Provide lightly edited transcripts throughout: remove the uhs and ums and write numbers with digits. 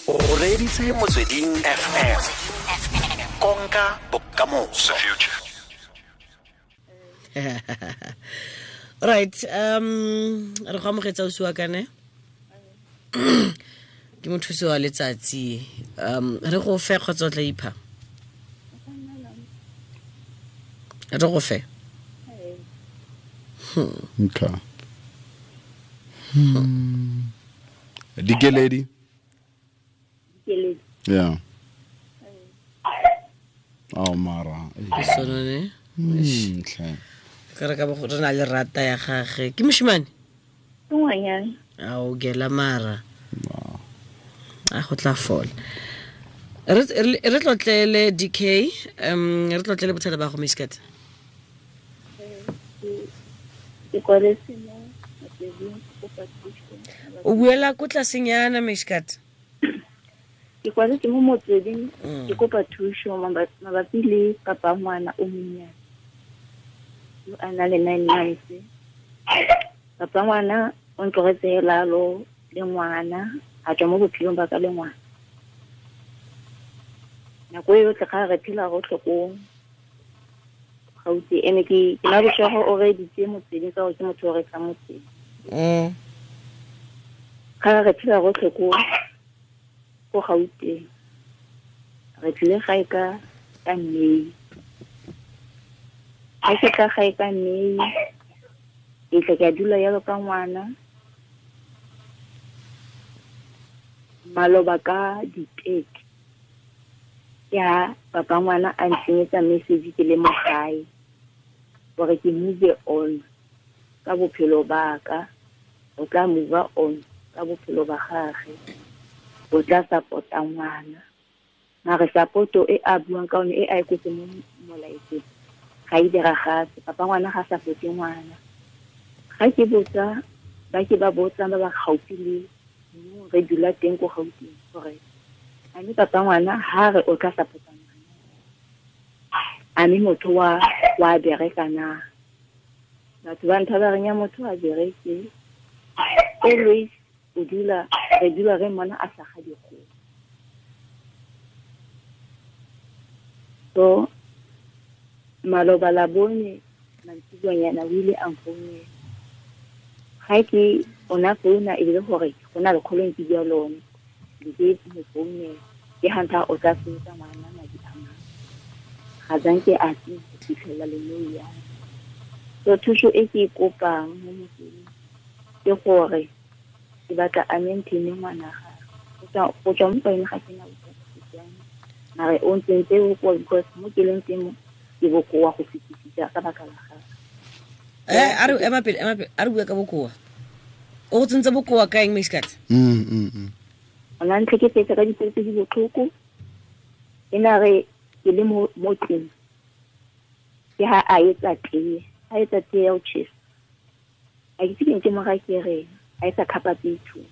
O reditse Motsweding FM. Konka bokamoso. Right, re go amogetsa o siwa kane ke mothusi wa letsatsi. Re go fe kgotsa o tla ipha? Re go fe. Okay. Dikeledi. Dikeledi. Yeah. Oh mara. Ke sone ne? Tlhe. Ka re ka bo re na le rata ya gage. Ke moshimane? Ke ngwanyana. A o gela mara. A go tla fola. Re tlotlele DK, re tlotlele bothata ba go Miskat. Ke kwaletse mo motsweding go kopa thuso. O buela ko tlasenyana Miskat. Ke kwaletse mo motsweding ke kopa thuso mabapi le papa ngwana o monnyane yo a na le 9 months. Papa ngwana o ntlogetse hela lo le ngwana, a tswa mo bophelong ba ka le ngwana. Nako e yotlhe ga re phela rotlhe ko Gauteng, ene ke na bošego o reditse motsweding ka gore ke motho o rekang motsweding. Ga re phela rotlhe ko Gauteng, re tlile gae ka May. Ga ke tla gae ka May, ke tla ke a dula jalo ka ngwana. Maloba ka di-thirty, ke ha papa ngwana a ntsenyetsa message ke le mo gae gore ke move on ka bophelo ba ka, o tla move on ka bophelo ba gagwe, o tla support-a ngwana. Mare support-o e a buang ka yone e a e kwetse mo molaetseng ga e diragatse. Papa ngwana ga support-e ngwana. Ga ke botsa ba ke ba botsang ba ba gaufi le mo re dula teng ko Gauteng gore a mme papa ngwana ha re o tla support-a ngwana, a mme motho wa bereka na? Batho ba ntha ba reng ya motho a bereke, always o dula, re dula re mmona a sa ga dikgomo. So maloba la bone mantsiboanyana o ile a nfounela. Ga ke ona founa e le gore go na le kgolong ke bua lone, ke ke mo founela, ke ha ntha o tla sebetsa ngwana madi a mang. Ga zanke a se fitlhela le nou ya. So thuso e ke e kopang mo motseng ke gore ke batla a maintain ngwana gagwe. Go tswa mo go ene ga ke na bothata, mare o ntsentse bokoa because mo ke leng teng mo ke bokoa go fetisisa ka baka la gagwe. A re ema pele, ema pele, a re bue ka bokoa. O go tsentse bokoa ka eng, Miskat? O na ntlhekefetsa ka dipelo tse di botlhoko. E na re ke le mo tlung, ke ha a etsa tee, a etsa tee ya ho tjhesa. A ke itse ke ntse mo ga ke reng, a etsa khapa tse two.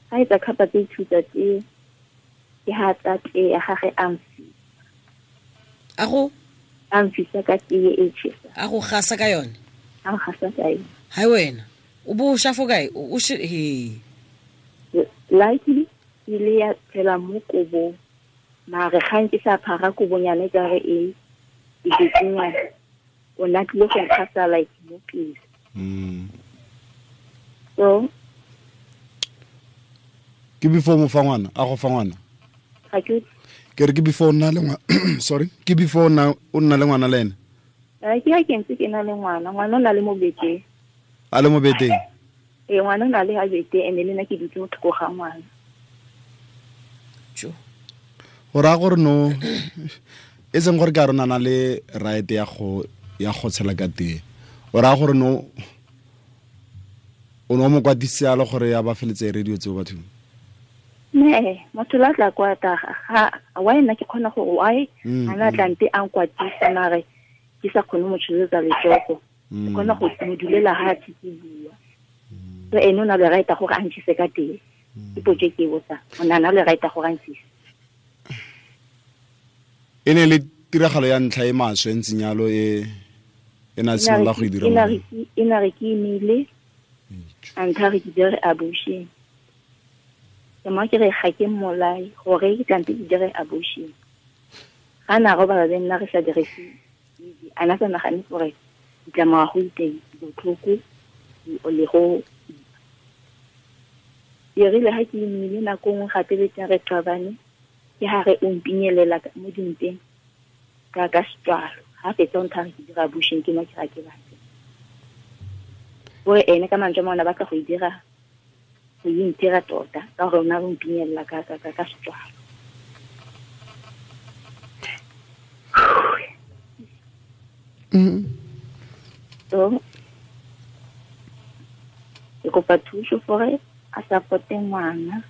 Ha etsa khapa tse two tsa tee, ke ha tsa tee ya gagwe a mfisa. A go? A mfisa ka tee e tjhesa. A go gasa ka yone? A gasa ka yone. Hai wena, o bo o sha fo kae? O she, he. Luckily, e ile ya phela mo kobong. Mare ga nke sa phara kobonyana e ka re e betsenyana. O na tlile go nkgasa like mo pele. So ke before mo fa ngwana, a go fa ngwana? Ga ke Ke re ke before o nna le ngwa-, sorry, ke before o nna, o nna le ngwana le ene? Ke ha ke ntse ke na le ngwana, ngwana o na le mo beteng. A le mo beteng? Ee, ngwana o na le ha beteng, ene le nna ke dutse mo thoko ga ngwana. Jo. Go raya gore no, e seng gore ke a rona na le right ya go tshela ka tee. O raya gore no, o ne o mo kwatisitse yalo gore ya ba feletse e radio tseo bathong? Ne, motho la tla kwata, ga, why nna ke kgona gore why a na tla nte a nkwatisa mare ke sa kgone mo tsholetsa letsogo. Ke kgona go mo dulela ha ke bua. So ene o na le right gore a ntshise ka teng. Ke potso e ke e botsang. O na le right gore a ntshise. E ne le tiragalo ya ntlha e maswe e ntseng yalo e na simolola go e dira mo? E na re ke imile, a ntha re ke dire abortion. Ke mo ke re ga ke mmolae gore ke tlampe ke dire abortion. Ga na robala le nna re sa dirise a na sa nagane gore ditlamorago di teng, botlhoko le go e rile ga ke imile nako nngwe gape le teng re qabane, ke ha re o mpinyelela mo dimpeng ka setswalo. Ga fetsa o nthare ke dira abortion, ke mo ke ga ke batle. Gore ene ka mantswe a mangwe a batla go e dira, go e ntira tota ka gore o ne a re o mpinyelela ka setswalo. So ke kopa thuso gore a supporte ngwana.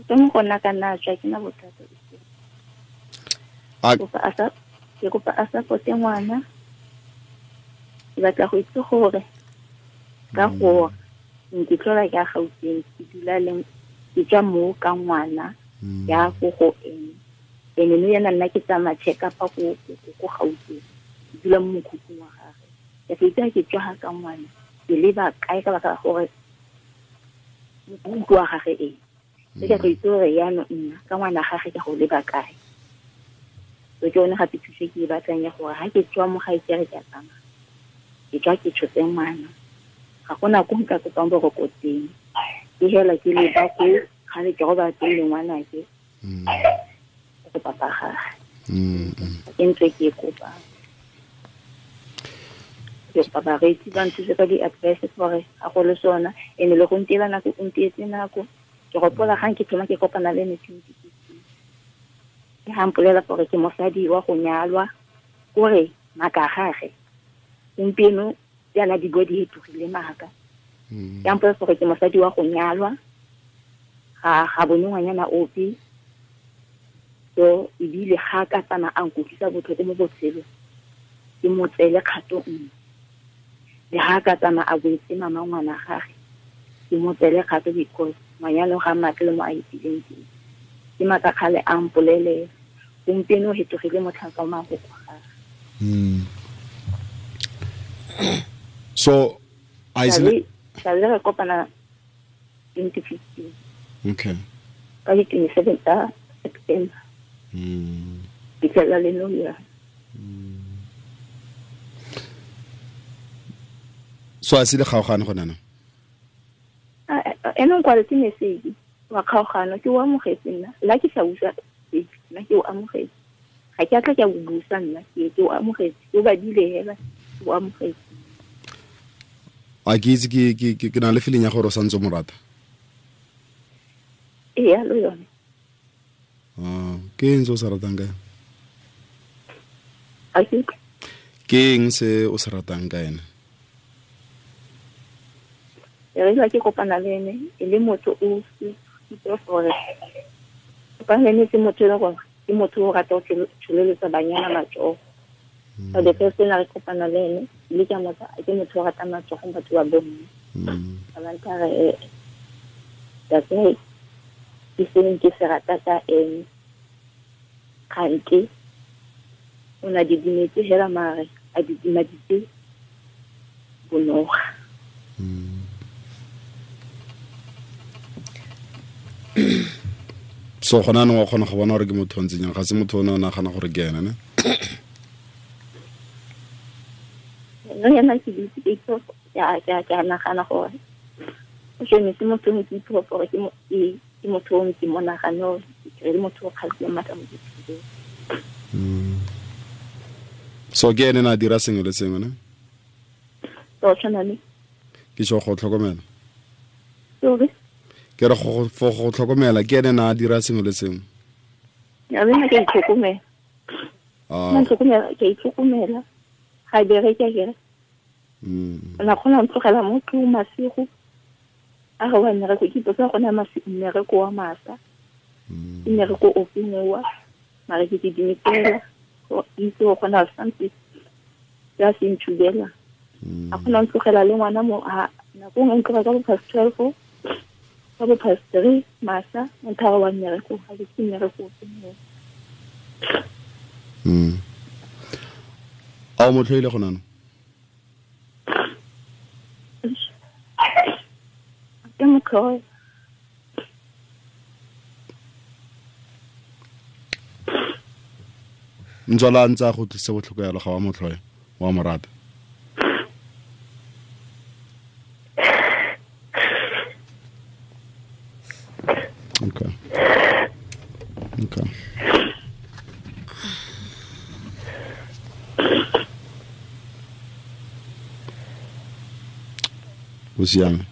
Ke mo go nna ka nna tswa ke na bothata. Ke kopa a supporte ngwana. Ke batla go itse gore ka gore ke tlola ke a Gauteng, ke dula le ke tswa mo ka ngwana ya go go ene. Ene no yena nna ke tsamaya check up go Gauteng. Ke dula mo mokhukhung wa gagwe. Ke itse ke tswa ga ka ngwana, ke leba kae ka baka la gore mokhukhu wa gagwe e. Ke go itse gore jaanong nna ka ngwana gagwe ke go leba kae. So ke yone gape thuso ke e batlang ya gore ga ke tswa mo gae ke re ke a tsamaya, ke tswa ke tshotse ngwana, ga gona ko nka kopang boroko teng. Ke hela ke leba ko gale ke robala teng le ngwanake go papa gagwe. Ke ntse ke e kopang. Ke kopa bareetsi ba nthuse ka di-advice gore ga go le sona, ene le go ntiela nako, o ntietse nako. Ke gopola gang ke thoma ke kopana le ene 2015. Ke ga mpolela gore ke mosadi wa go nyalwa, kore maaka a gagwe gompieno jaana di bua di hetogile maaka. Ke a mpolela gore ke mosadi wa go nyalwa, ga bone ngwanyana ope. So ebile ga ka tsamaya a nkutlwisa botlhoko mo botshelong, ke mo tseele kgato nngwe. Le ga ka tsamaya a boetse mama ngwana gagwe, ke mo tseele kgato because manyalo ga matle mo a itileng teng. Ke maaka kgale a mpolelela, gompieno o hetogile motlhanka wa mafoko a gagwe. So I sale re kopana 2015. Okay. Ka di 27 tsa September. Fitlhela le nou ya. So a se le kgaogane gone na? Ene o nkwaletse message wa kgaogano, ke o amogetse nna. La ke sa utlwa nna ke o amogetse. Ga ke a tla ke a o busa nna, ke o amogetse. Ke o badile hela, ke o amogetse. A ke itse ke na le feeling ya gore o santse o mo rata. Ee, yalo yone. Ke eng se o se ratang ka ene? Ke eng se o se ratang ka ene? E re ke kopana le ene e le motho o itse gore kopana le ene ke motho e leng gore ke motho o rata go tsholeletsa banyana matsogo. So the first thing re kopana le ene le ke motho ke motho o rata matsogo batho ba bomme. Ba ntlha re that's why ke seng ke se rata ka ene. Kgante o na didimetse hela mare a didimaditse bonoga. So gona anong wa kgona go bona gore ke motho o ntseng jang, ga se motho o ne o nagana gore ke ene ne? Nna yana ke itse ke itse ke a nagana gore o tshwanetse motho o ke itse gore ke motho o ke mo nagane gore ke le motho o kgatlhileng maatla mo botshelong. So ke ene na dira sengwe le sengwe ne? So tshwana le ke sho go tlhokomela. Sorry. Ke re go tlhokomela ke ene na dira sengwe le sengwe. Ya nna ke itlhokomela. Nna itlhokomela, ke itlhokomela. Ga bereke ke re. Na kgona go tlogela mo tlong masigo. A ga wa mmereko ke ipotsa go na mmereko wa masa. Ke mmereko o feng wa mare ke dimetela go itse go kgona something ya se ntshubela. A kgona go tlogela le ngwana mo nako nngwe ntloga ka bo past 12 ka bo past 3 masa nthara wa mmereko ga ke mmereko o feng wa. A o mo tlhoile go nana? Ke mo tlhoile. Ntswala ntse a go tlise botlhoko yalo ga wa motlhoya wa mo rata. Okay. Okay. O siame.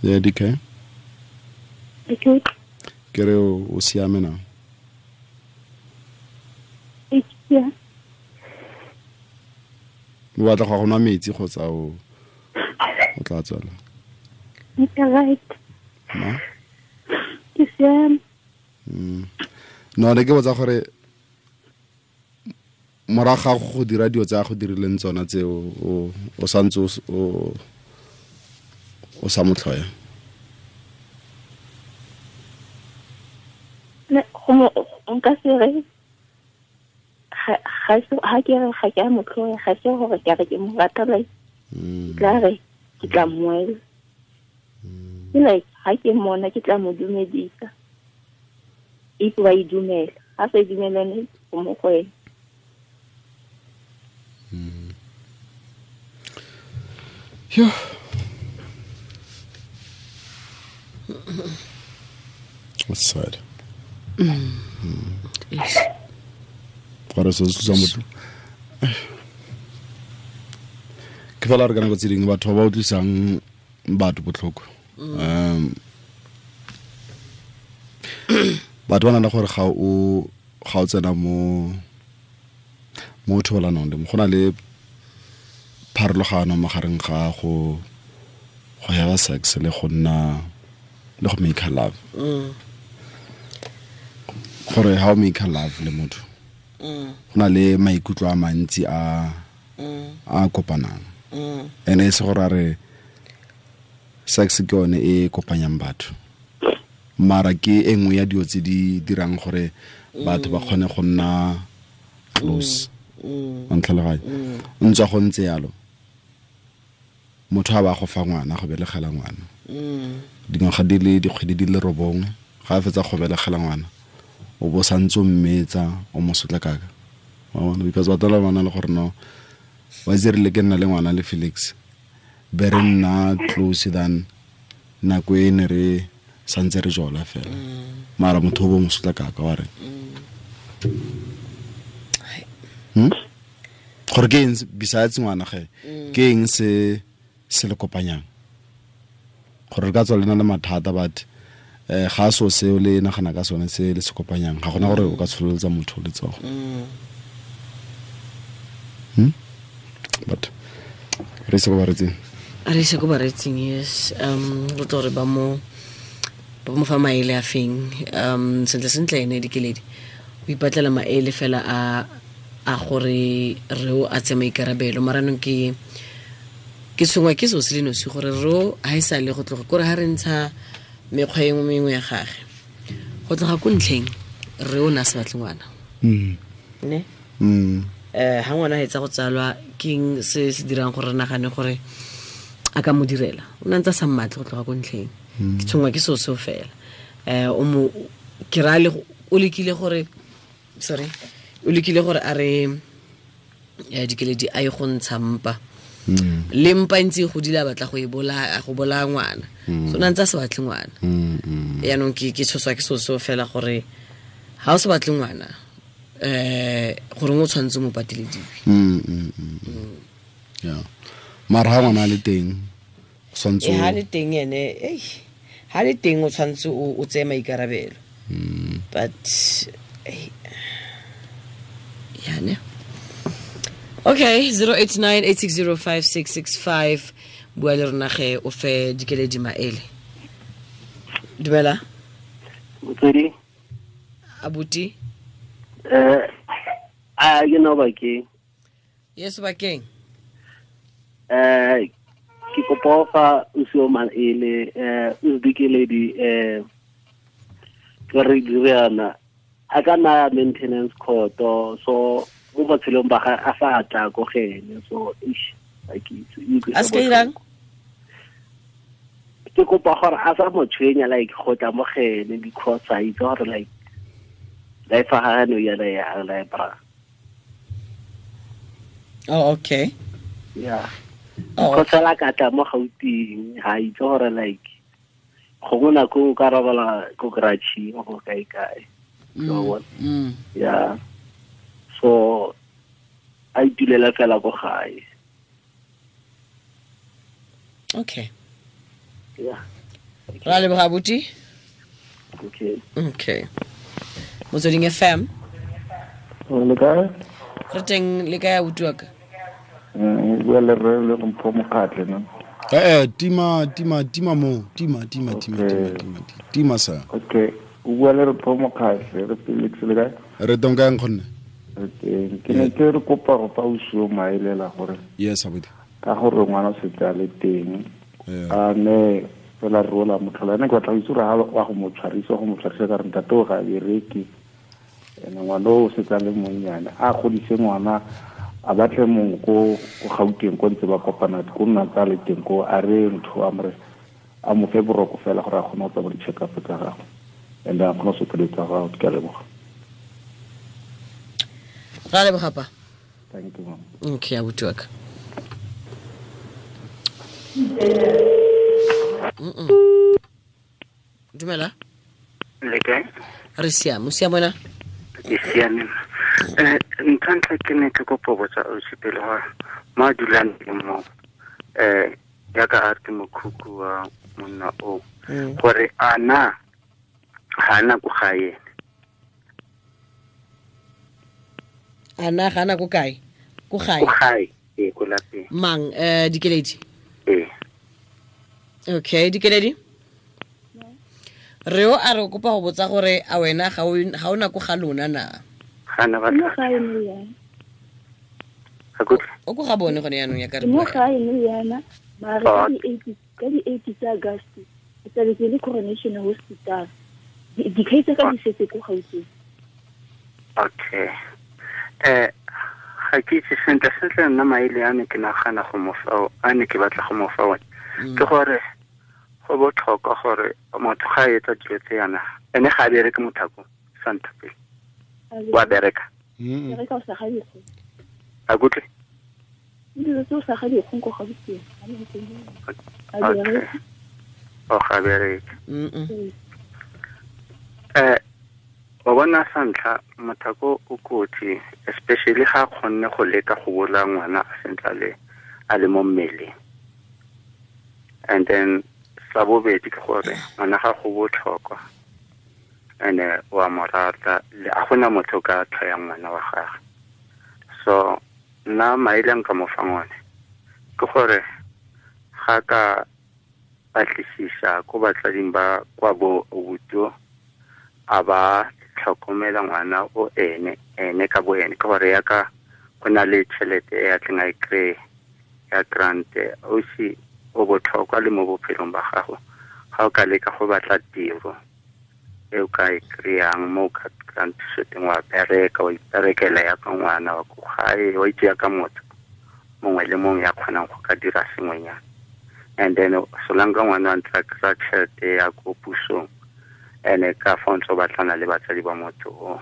Yeah, DK. Okay. Ke re o siame na? Yeah. O batla go nwa metsi kgotsa o tla tswela? Ke right. Ma? Ke siame. No, ne ke botsa gore morago ga go dira dilo tsa go dirileng tsona tseo o santse o sa motlhoya. Ne go nka se re ga ke re ga ke a motlhoya, ga se gore ke re ke mo rata, like tla re ke tla moela. Ke like ga ke mmona ke tla mo dumedisa. If ba e dumela, ga sa e dumelane go mo go ena. Yeah. That's sad. Yes. Gore se se motho. Ke fela re kana go tseding batho ba utlwisang batho botlhoko. Batho ba na le gore ga o tsena mo thobalanong le go na le pharologano magareng ga go have sex le go nna le go make love. Gore how make love le motho. Go na le maikutlo a mantsi a kopanang. Ene e se gore a re sex ke yone e kopanyang batho. Mara ke e nngwe ya dilo tse di dirang gore batho ba kgone go nna close. Wa ntlhaloganya? Ntswa go ntse yalo. Motho a ba go fa ngwana, go belegela ngwana. Dingwaga di le dikgwedi di le 9, ga a fetsa go belegela ngwana, o bo santse o mmetsa, o mo sotla kaka. Wa bona, because batho ba bana le gore no, wa itse rile ke nna le ngwana le Felix, be re nna close than nako e ne re santse re jola fela. Mara motho o bo mo sotla kaka wa re. Gore ke eng besides ngwana ge, ke eng se se le kopanyang? Gore re ka tswa le na le mathata, but ga so seo le nagana ka sone se le se kopanyang, ga gona gore o ka tshololetsa motho letsogo. But re se go baretseng. Re se go baretseng, yes. Re tlo re ba mo fa maele a feng. Sentle sentle ene Dikeledi o ipatlela maele fela a gore re o a tse maikarabelo. Mara nong ke tshwengwa ke seo se le nosi gore ro ha e sa le go tloga kore ha re ntsha mekgwa e mengwe ya gage go tloga ko ntlheng re o na se batle ngwana. Ne? Ha ngwana a etsa go tsalwa keng se se dirang gore re nagane gore a ka mo direla, o na ntse a sa mmatle go tloga ko ntlheng. Ke tshwengwa ke seo seo fela. O mo ke ra le o lekile gore sorry o lekile gore a re Dikeledi a ye go ntsha mpa. Le mpa ntse go dila batla go e bolaya go bolaya ngwana. So na ntse a se batle ngwana. Yaanong ke tshoswa ke seo seo fela gore ha o se batle ngwana gore o tshwanetse mo patelediwe. Yeah. Mara ha ngwana le teng tshwanetse ha le teng ene ha le teng o tshwanetse o tseye maikarabelo. But yeah, ne. Okay, 0898605665 bua le rona ge o fe Dikeledi maele. Dumela. Motswedi. Abuti. A ke no bakeng. Yes, bakeng. Ke kopa fa o se o maele o Dikeledi ke re diriana a ka na maintenance court, so mo botshelong ba ga a sa tla go gene, so ish a ke itse a se irang. Ke kopa gore a sa mo tshwenya like go tla mo gene because a itse gore like Life ga no ya ya la bra. Oh, okay. Yeah. Oh, go tsela ka tla mo Gauteng ha itse gore like go gona ko ka robala ko garage go kae kae. So what? Yeah. So I dulela fela ko gae. Okay. Yeah. Ra leboga abuti. Okay. Okay. Motsweding FM. Le kae? Re teng le kae abuti wa ka? Bua le rre le Mpho Mokgatle no. Tima tima tima mo tima tima tima tima tima tima sa. Okay. O bua le Mpho Mokgatle re Felix le kae? Re teng kae nkgonne? Re teng. Ke ne ke re kopa go fa o maelela gore. Yes abuti. Ka gore ngwana o setse a le teng. A ne fela rola motlhola ene ke batla go itse gore wa go mo tshwarisa ka re ntate o ga bereke. Ene ngwana o setse a le monnyane a godise ngwana a batle mongwe ko Gauteng ko ntse ba kopana ko nna tsa le teng ko a re ntho a more a mo fe boroko fela gore a kgone go tsamaya di-check-up tsa gagwe and a kgone go sokeletsa tsa gagwe. Ke a leboga. Ra leboga pa. Thank you ma'am. Okay abuti wa ka. Dumela. Le kae? Re siame, o siame wena? Ke siame. Ntlha ke ne ke kopa botsa ausi pele gore mo a dulang teng mo jaaka a re ke mokhukhu wa monna o gore a na ga ana ko gae ene. A na ga ana ko kae? Ko gae. Ko gae, ee, ko lapeng. Mang Dikeledi? Ee. Okay, Dikeledi? Re o a re kopa go botsa gore a wena ga o na ko ga lona na? Ga na batla. Mo gae mo yana. O ko ga bone gone yaanong ya ka re. Mo gae mo yana, mare ka di 8 tsa August, ke tla ke le Coronation Hospital. Dikhai tsa ka di setse ko Gauteng. Okay. Ga ke itse sentle sentle nna maele a ne ke nagana go mo fa a ne ke batla go mo fa one. Ke gore go botlhokwa gore motho ga a etsa dilo tse yana ene ga a bereke mothako santa pele. Wa bereka. Bereka o sa ga dikgong. A kutlwe? Dilo tse o sa ga dikgong ko Gauteng. Okay. O ga bereke. O bona sa ntlha mothako o kotsi especially ga kgonne go leka go bola ngwana a sentle a le mo mmeleng. And then sa bobedi ke gore ngwana ga go botlhokwa ene wa mo rata a gona motho ka tlhoyang ngwana wa gagwe. So nna maele nka mo fang one ke gore ga ka batlisisa ko batsading ba kwa bo obuto a ba tlhokomela ngwana o ene ene ka bo ene ke gore yaka go na le tšhelete e a tleng a e kry-e ya grant o se o botlhokwa le mo bophelong ba gago ga o ka leka go batla tiro e o ka e kry-ang mo o ka kry-ang thuso teng wa bereka wa iperekela yaka ngwana wa ko gae wa itse yaka motho mongwe le mongwe ya kgonang go ka dira sengwenyana. And then solanka ngwana a ntse a kry-a tšhelete ya ko pusong ene ka fa ntse o batlana le batsadi ba motho o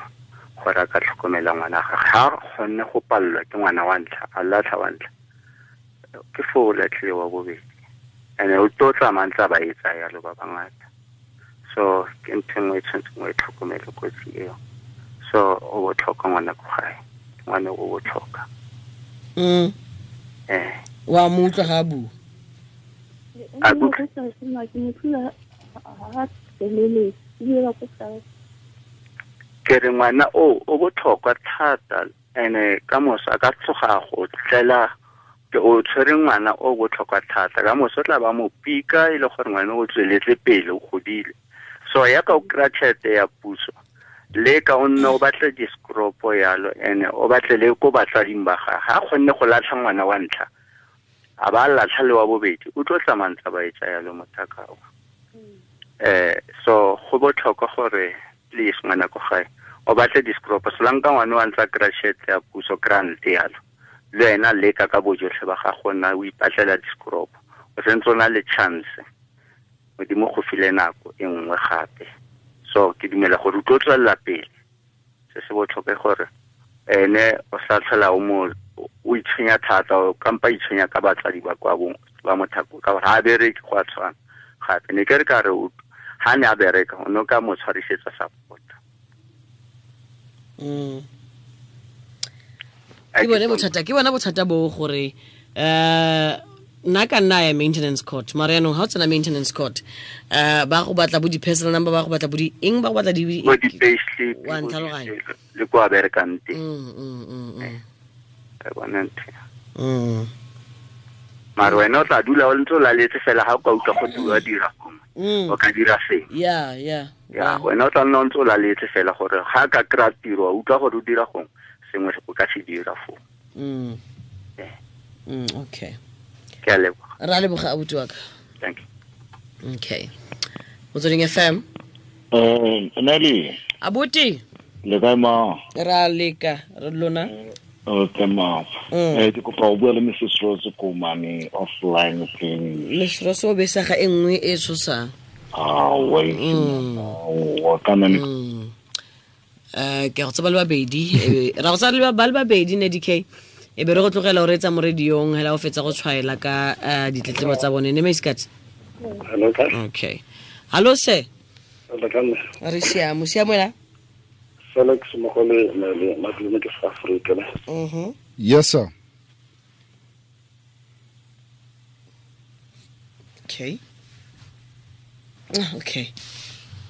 gore a ka tlhokomela ngwana gagwe ga kgonne go palelwa ke ngwana wa ntlha a latlha wa ntlha ke foo o latlhile wa bobedi ene o tlo tsamaya ntse a ba etsa yalo ba bangata. So ke ntho nngwe e tshwanetseng o e tlhokomele kotsi eo. So o botlhokwa ngwana ko gae, ngwana o botlhokwa. Wa mo utlwa ga a bua? A kutlwe? Ke re ngwana o botlhokwa thata ene ka moso a ka tloga go tlela ke o tshwere ngwana o botlhokwa thata ka moso tla ba mo pika e le gore ngwana o tsweletse pele o godile. So yaka o kry-a tšhelete ya puso le ka o nne o batle discropo yalo ene o batle le ko batsading ba gagwe ga a kgonne go latlha ngwana wa ntlha a ba latlha le wa bobedi o tlo tsamaya ntse ba etsa yalo mothaka o. So go botlhokwa gore please ngwana ko gae o batle discropo solanka ngwana wa ntse a kry-a tšhelete ya puso grant yalo le wena leka ka bojotlhe ba gago nna o ipatlela discropo o sentse o na le chance modimo go file nako e nngwe gape. So ke dumela gore o tlo tswelela pele Se se botlhokwa gore ene o sa tlhola o mo o itshwenya thata o kampa itshwenya ka batsadi ba kwa bong ba mothako ka gore ha bereke go a tshwana gape ne ke re ka re ha ne a bereka o ne ka mo tshwarisetsa support. Ke bona bothata bo gore nna ka nna ya maintenance court mara yaanong ga o tsena maintenance court ba go batla bo di-personal number ba go batla bo di eng ba go batla di payslip wa ntlhaloganya le kwa berekang teng. Ka bona ntho. Mara wena o tla dula o ntse o laletse fela ga o ka utlwa go dira dira o ka dira seng. Yeah. Wena o tla nna o ntse o laletse fela gore ga ka kry-a tiro wa utlwa gore o dira gongwe sengwe o ka se dira foo. Okay. Ke a leboga. Ra leboga abuti wa ka. Thank you. Okay. Motsweding FM. Nelly. Abuti. Le kae ma? Ra leka re lona. Okay ma. Ke kopa go bua le Mrs Rose ko mane offline thing. Mrs Rose o besa ga e nngwe e tshosang. Ah, wait. Wa kana ne. Ke go tsaba le babedi, ra go tsaba le ba le babedi ne DK. E be re go tlogela o reetsa mo radiong hela o fetsa go tshwaela ka ditletlebo tsa bone ne Maiskats. Hello ka. Okay. Hello sir. Hello Re siamo, siamo ela. Felix Mogole le madume ke South Africa. Yes sir. Okay. Okay.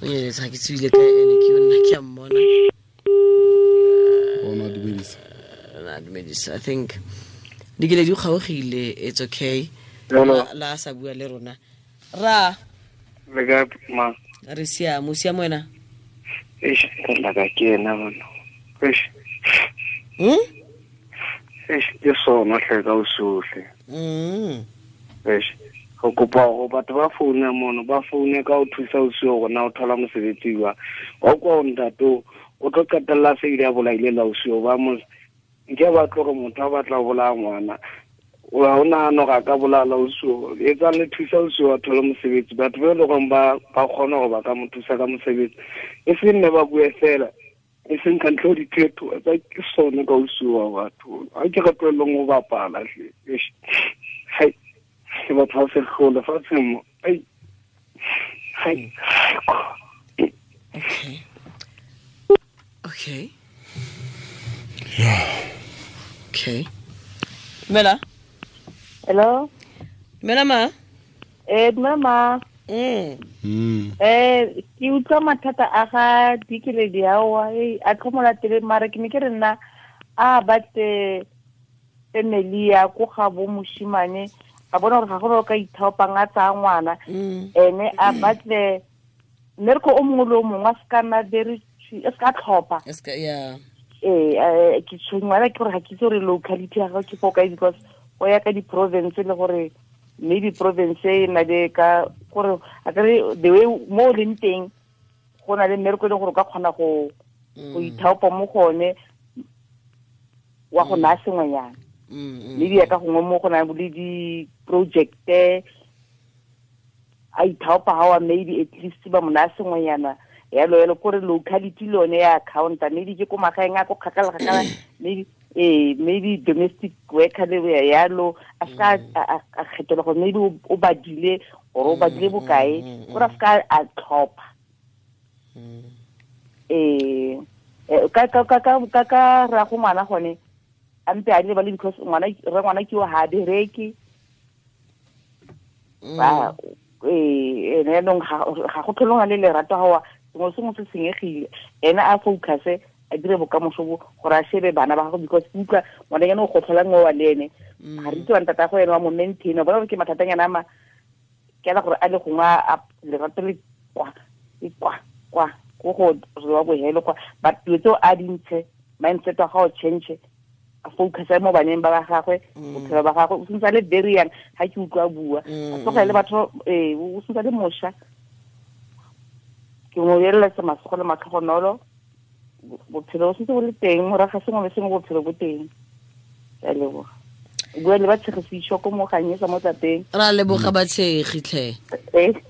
O nyeletse ga ke tswile ka ene ke yona ke a mmona. Ona dumedisa. Dumedisa. I think dikele di kgaogile, it's okay. La sa bua le rona. Ra le ka ma re siamo, siamo wena. Eish, la ka ke ena bona. Eish. Eish, ke sona hle ka o sohle. Eish, go kopa go batho ba founa mono, ba foune ka o thusa o sio gona o thola mosebetsi wa. Wa kwa o ntate o tlo qetella se ile a bolaile la o sio ba mo nke ba tlo go motho a batla go bolaya ngwana. O a ona no ga ka bolala o sio. E tsa le thusa o sio a thola mosebetsi. Batho ba le gong ba kgona go ba ka mo thusa ka mosebetsi. E se nne ba bue fela. E seng ka ntlo dithetho tsa ke sone ka o sio wa batho. Ha ke re tlohelleng go bapala hle. Hai. Ke batho ba se hlole fatshe mo. Ai. Hai. Okay. Okay. Yeah. Okay. Mela. Hello. Mela ma. Dumela ma. Ke utlwa mathata a ga dikeledi aowa a tlhomola tele mara ke ne ke re nna a batle family ya ko ga bo moshimane a bona gore ga go ka ithaopang a tsaya ngwana ene a batle mmereko o mongwe le o mongwe a se ka nna very e se ka tlhopha. Ke tshwenngwa ke gore ga ke itse gore locality ya gago ke fo kae because go ya ka di-province le gore maybe province e na le ka gore a kere the way mo o leng teng go na le mmereko e leng gore o ka kgona go ithaopa mo go one wa go naya sengwenyana. Maybe ya ka gongwe mo go na le di-projecte a ithaopa ga wa maybe at least ba mo naya sengwenyana yalo yalo kore locality le yone ya counter maybe ke ko magaeng a ko kgakala maybe maybe domestic worker le yalo a ska a kgethela gore maybe o badile or o badile bokae gore a ska a tlhopha. Ka ra go ngwana gone a mpe a le because ngwana re ngwana ke o ha bereke ba ene nong ga go tlholong le lerato ga wa sengwe sengwe se senyegile ene a focus a dire bokamoso bo gore a shebe bana ba gago because utlwa ngwananyana o gotlholang o wa le ene ga re itse wa ntata go ene wa mo maintain bona gore ke mathatanyana a ma ke ala gore a le gongwe a lerato le kwa e kwa kwa ko go wa bohelo kwa but dilo tseo a dintshe mindset wa gago change a focus mo baneng ba gagwe bophelo ba gagwe o sentse a le very young ga ke utlwa bua a tlogele batho o sentse a le mošwa ke mo eletsa masogo le matlhogonolo bophelo bo sentse bo le teng morago ga sengwe le sengwe bophelo bo teng. Ke a leboga. Bua le batshegisišo ko mo ganyetsa mo tlapeng. Ra leboga batshegi tlhe.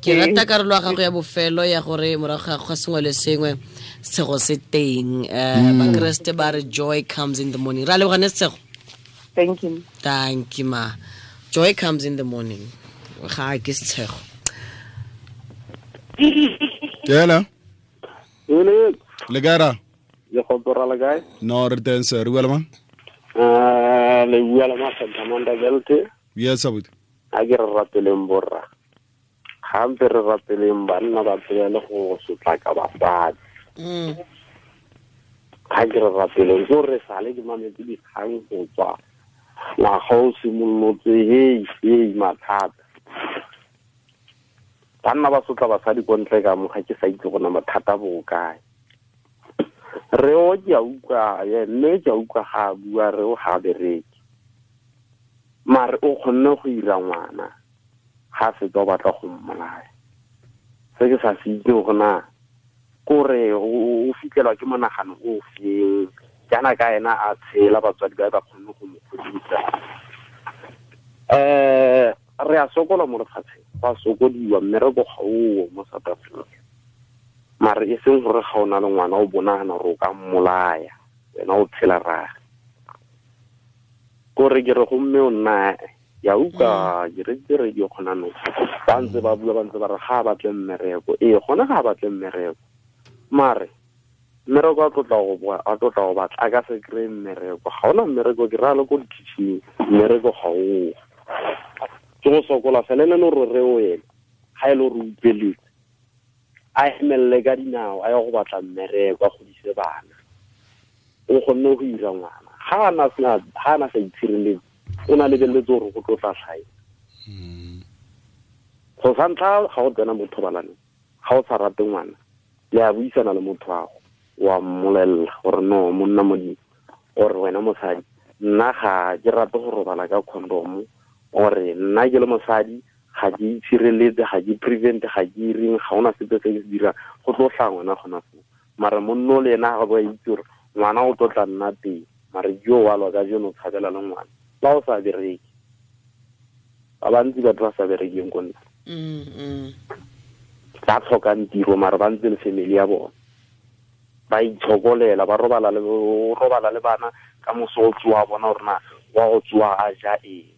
Ke rata karolo ya gago ya bofelo ya gore morago ga sengwe le sengwe Setshego se teng. Bakreste ba re joy comes in the morning. Ra leboga ne Setshego. Thank you. Thank you ma. Joy comes in the morning. Ga ke Setshego. Yela. Le gara. Le go la kae? No re teng sir, re bua le mang? Le bua le Masamanda Belte. Yes abuti. A ke re rapeleng borra. Gampe re rapeleng banna ba pele go sotlaka basadi. Ga ke re rapeleng go re sale ke mametse dikgang go tswa ngwaga o simolotse hei mathata. Banna ba sotla basadi ko ntle ka mo ga ke sa itse gona mathata bo kae. Re o ke a utlwa mme ke a utlwa ga bua re o ga bereke. Mare o kgonne go ira ngwana ga fetsa o batla go mmolaya. Se ke sa se itse gona kore o fitlhelwa ke monagano o feng jaana ka ena a tshela batswadi ba ba kgonne go mo godisa. Re a sokola mo lefatsheng, go a sokodiwa mmereko ga oo mo South Africa. Mare e seng gore ga o na le ngwana o bonagana gore o ka mmolaya wena o tshela rage. Kore ke re go mme o nna ya utlwa ke re radio gona no ba ntse ba bua ba ntse ba re ga a batle mmereko. Ee gona ga a batle mmereko, mare mmereko a tlotla go boa a tlotla go batla a ka se kry-e mmereko. Ga ona mmereko ke raya le ko di-kitchen mmereko ga oo. Ke go sokola fela ene le gore re o ene ga e le gore o utlweletse a emelele ka dinao a ye go batla mmereko a godise bana. O kgonne go ira ngwana ga ana sa itshireletse o na lebeletse gore go tlo tla tlhae. Go sa ntlha ga go tsena mo thobalanong ga o sa rate ngwana le a buisana le motho wa go wa mmolelela gore no monna modimo ore wena mosadi nna ga ke rate go robala ka condom ore nna ke le mosadi ga ke itshireletse ga ke prevent ga ke ireng ga ona sepe se ke se dirang go tlo tla ngwana gona foo. Mare monno le ena ga ba itse gore ngwana o tlo tla nna teng mare jo wa lwa ka jeno tshabela le ngwana ba o sa bereke. Ba bantsi batho ba sa berekeng ko nna ba tlhokang tiro mare ba ntse le family ya bona ba itshokolela ba robala le bana ka moso o tsoa bona gore na wa go tsoa a ja eng.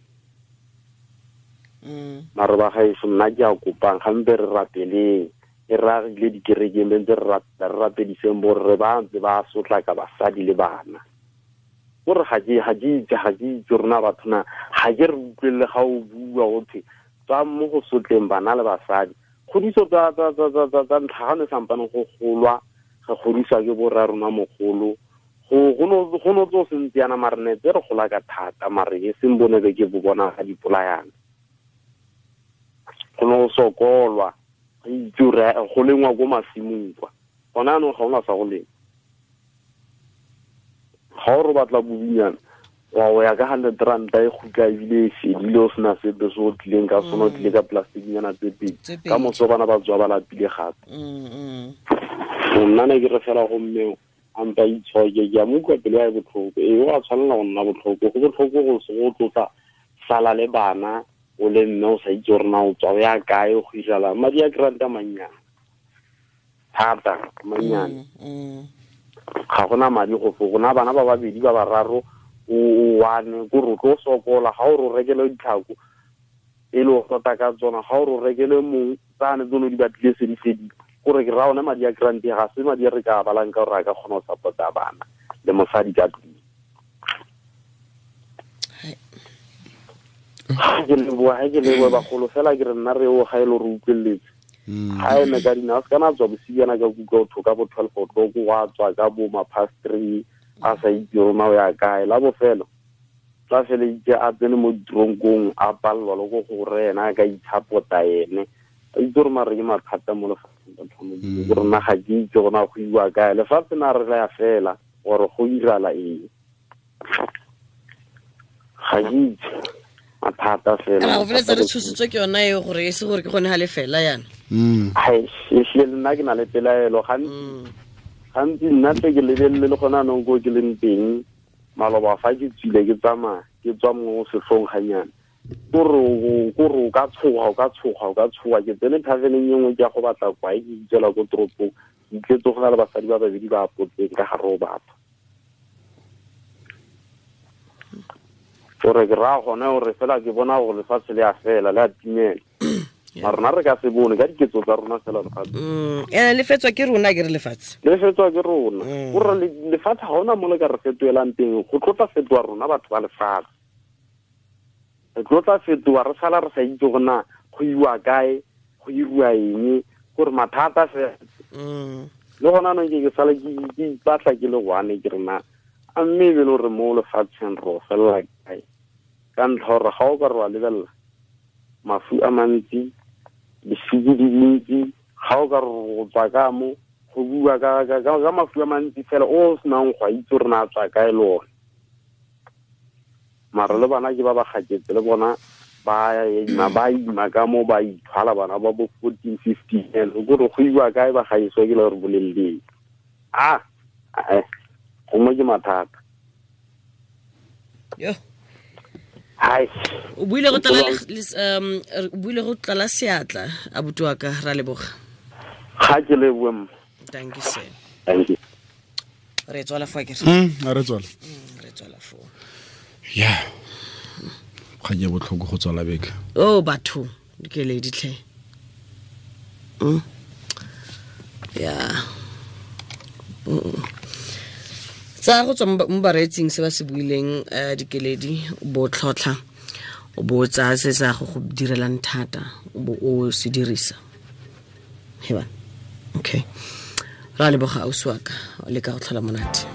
Mare ba gaeso nna ke a kopang gampe re rapeleng e ragile dikerekeng be ntse re rapediseng borre ba ntse ba sotlaka basadi le bana. Gore ga ke itse rona batho na ga ke re utlwelele ga o bua gothe tswa mo go sotleng bana le basadi. Kgodiso tsa ntlha ga ne sampane go golwa re godiswa ke borra rona mogolo go no tso sentse yana mare ne tse re gola ka thata mare e seng bone be ke bo bona ga dipolayana. Go no sokolwa re itse gore go lengwa ko masimong kwa gona anong ga ona sa go lema. Ga o re batla bobinyana wa o ya ka 100 ranta e gutla ebile e fedile o sena sepe se o tlileng ka sone o tlile ka plasticnyana tse pedi ka moso bana ba tswa ba lapile gape. Nna ne ke re fela go mme a mpa itshoke ke a mo utlwa pelo ya e botlhoko. Ee o a tshwanela go nna botlhoko go botlhoko go tlotla sala le bana o le mme o sa itse gore na o tswa o ya kae go irala madi a granta mannyane thata mannyane. Ga gona madi go fo gona bana ba babedi ba bararo o one ko re tlo sokola ga o re rekele ditlhako e le o tota ka tsona ga o re rekele mong tsane tsone di batlile se di fedile gore ke ra ona madi a grant ga se madi a re ka balang ka gore a ka kgona go support-a bana le mosadi ka tlung. Ke leboa bagolo fela ke re nna re o ga e le gore utlweletse ga eme ka dinao se kana tswa bosibiana ka kutlwa o thoka bo 12 o'clock wa tswa ka bo ma past 3 a sa itse rona o ya kae la bofelo tla feleitse a tsene mo ditronkong a palelwa le go gore ena a ka itshapota ene a itse gore mare ke mathata mo lefatsheng batho gore nna ga ke itse gona go iwa kae lefatshe na re ya fela gore go irala eng ga ke itse mathata fela. Go feletsa re tshositswe ke yona eo gore e se gore ke gone ga le fela yana. Ai ehlile le nna ke na le pelaelo gantsi nna tle ke lebelele le gona anong ko ke leng teng maloba fa ke tswile ke tsamaya ke tswa mo setlhong ganyana Kore o ka tshoga ke tsene thaveneng e nngwe ke ya go batla kwae ke itsela ko toropong ke itletse go na le basadi ba babedi ba apotseng ka gare o batho. Gore ke raya gone gore fela ke bona gore lefatshe le a fela le a timela. Ma rona re ka se bone ka diketso tsa rona fela lefatshe. Ene le fetswa ke rona ke re lefatshe. Le fetswa ke rona. Gore lefatshe ga ona mo le ka re fetoelang teng go tlotla fetoa rona batho ba lefatshe. Re tlotla fetoa re sala re sa itse gore na go iwa kae, go iriwa eng, gore mathata fela. Le gona anong ke sala ke ipatla ke le one ke re na a mme e be le gore mo lefatsheng re o felela kae. Ka ntlha gore ga o ka re wa lebelela mafu a mantsi, disiki di dintsi, ga o ka re go tswa ka mo go bua ka mafu a mantsi fela o senang go a itse gore na a tswa kae le one. Mara le bana ke ba ba gaketse le bona ba ima ka mo ba ithwala bana ba bo 14 15 years gore go iwa kae ba gaiswa ke le gore bolelleng. Gongwe ke mathata. Yo. Hai. O buile go tlala seatla abuti wa ka ra leboga. Ga ke leboe mma. Thank you sir. Thank you. Re tswala fa ke re. Re tswala. Re tswala fo. Yeah. Ga ke botlhoko go tswala beke. Oh batho, ke le ditlhe. Yeah. Tsa go tswa mo bareetsing se ba se buileng dikeledi bo tlhotlha o bo tsa se sa go direlang thata o bo o se dirisa. Heba. Okay. Ra leboga ausi wa ka le ka go tlhola monate.